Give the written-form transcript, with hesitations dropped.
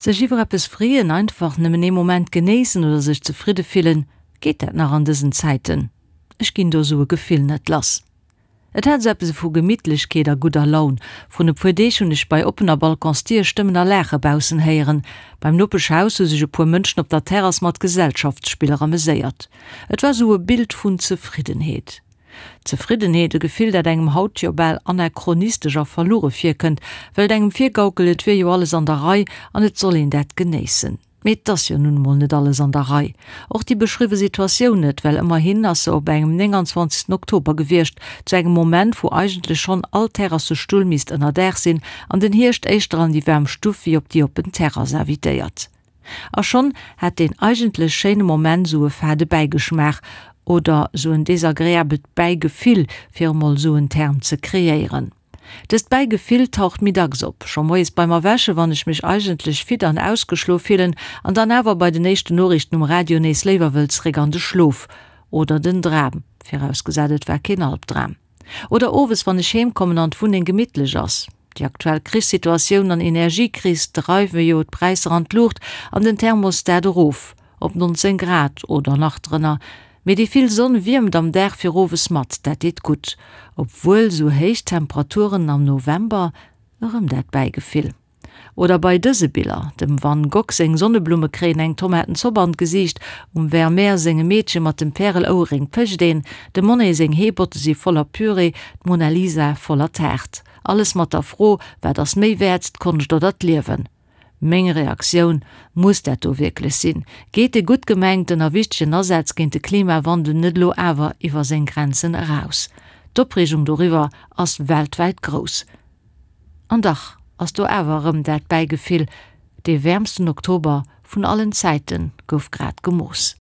Sech iwwer eppes freeën, einfach nëmmen ee Moment genéissen oder sech zefridde fillen, geet dat nach an dësen Zäiten? Ech ginn do sou e Gefill net lass. Et hat sou eppes vu Gemittlechkeet a gudder Laun. Vrun e puer Deeg hunn ech bei oppener Balconsdier Stëmmen a Laache baussen héieren. Beim Nopeschhaus hu sech e puer Mënschen op der Terrass mat Gesellschaftsspiller ameséiert. Et war sou e Bild vun Zefriddenheet. Zefriddenheet, e Gefill, dat engem haut jo bal anachronistesch a verluere virkënnt, well et engem virgaukelt, et wier jo alles an der Rei an et soll een dat genéissen. Mee et ass jo nun emol net alles an der Rei. Och déi beschriwwe Situatioun net, well ëmmerhin ass se op engem 29. Oktober gewiescht, zu engem Moment, wou eigentlech schonn all Terrassestull misst ënnerdaach sinn an den Hierscht éischter an déi waarm Stuff wéi op déi oppen Terrass invitéiert. A schonn hat deen eigentlech schéine Moment sou e fade Bäigeschmaach, oder sou en desagreabelt Bäigefill, fir emol sou en Term ze kreéieren. Dëst Bäigefill taucht méi dacks op, scho moies beim Erwächen, wann ech mech eigentlech fit an ausgeschlof fillen, an dann awer bei den éischten Noriichten um Radio nees léiwer wëll zeréck an de Schlof, oder den Dram, virausgesat et war keen Albdram. Oder owes, wann ech heem kommen an d'Wunneng gemittlech ass. Déi aktuell Krichssituatioun an Energiekris dreiwe jo d'Präisser an d'Luucht an den Thermostat erof op 19 Grad oder nach drënner. Mee déi vill Sonn wiermt am Dag fir owes mat, dat deet gutt. Obwuel sou héich Temperaturen am November, erëm dat Bäigefill. Oder bei dëse Biller, dem Van Gogh seng Sonneblumme kréien eng Tomatenzopp an d'Gesiicht, um Vermeer sengem Meedche mat dem Pärel-Ouerréng pécht een, dem Monet seng Heebotte si voller Püree, d'Mona Lisa voller Taart. Alles mat der Fro, wat ass méi wäert, d'Konscht oder d'Liewen? Meng Reaktioun, Muss dat do wierklech sinn? Geet de gutt gemengten a wichtegen Asaz géint de Klimawandel net elo awer iwwer seng Grenzen eraus? D'Opreegung doriwwer ass weltwäit grouss. An dach ass do awer erëm dat Bäigefill, dee wäermsten Oktober vun allen Zäite gouf grad gemooss.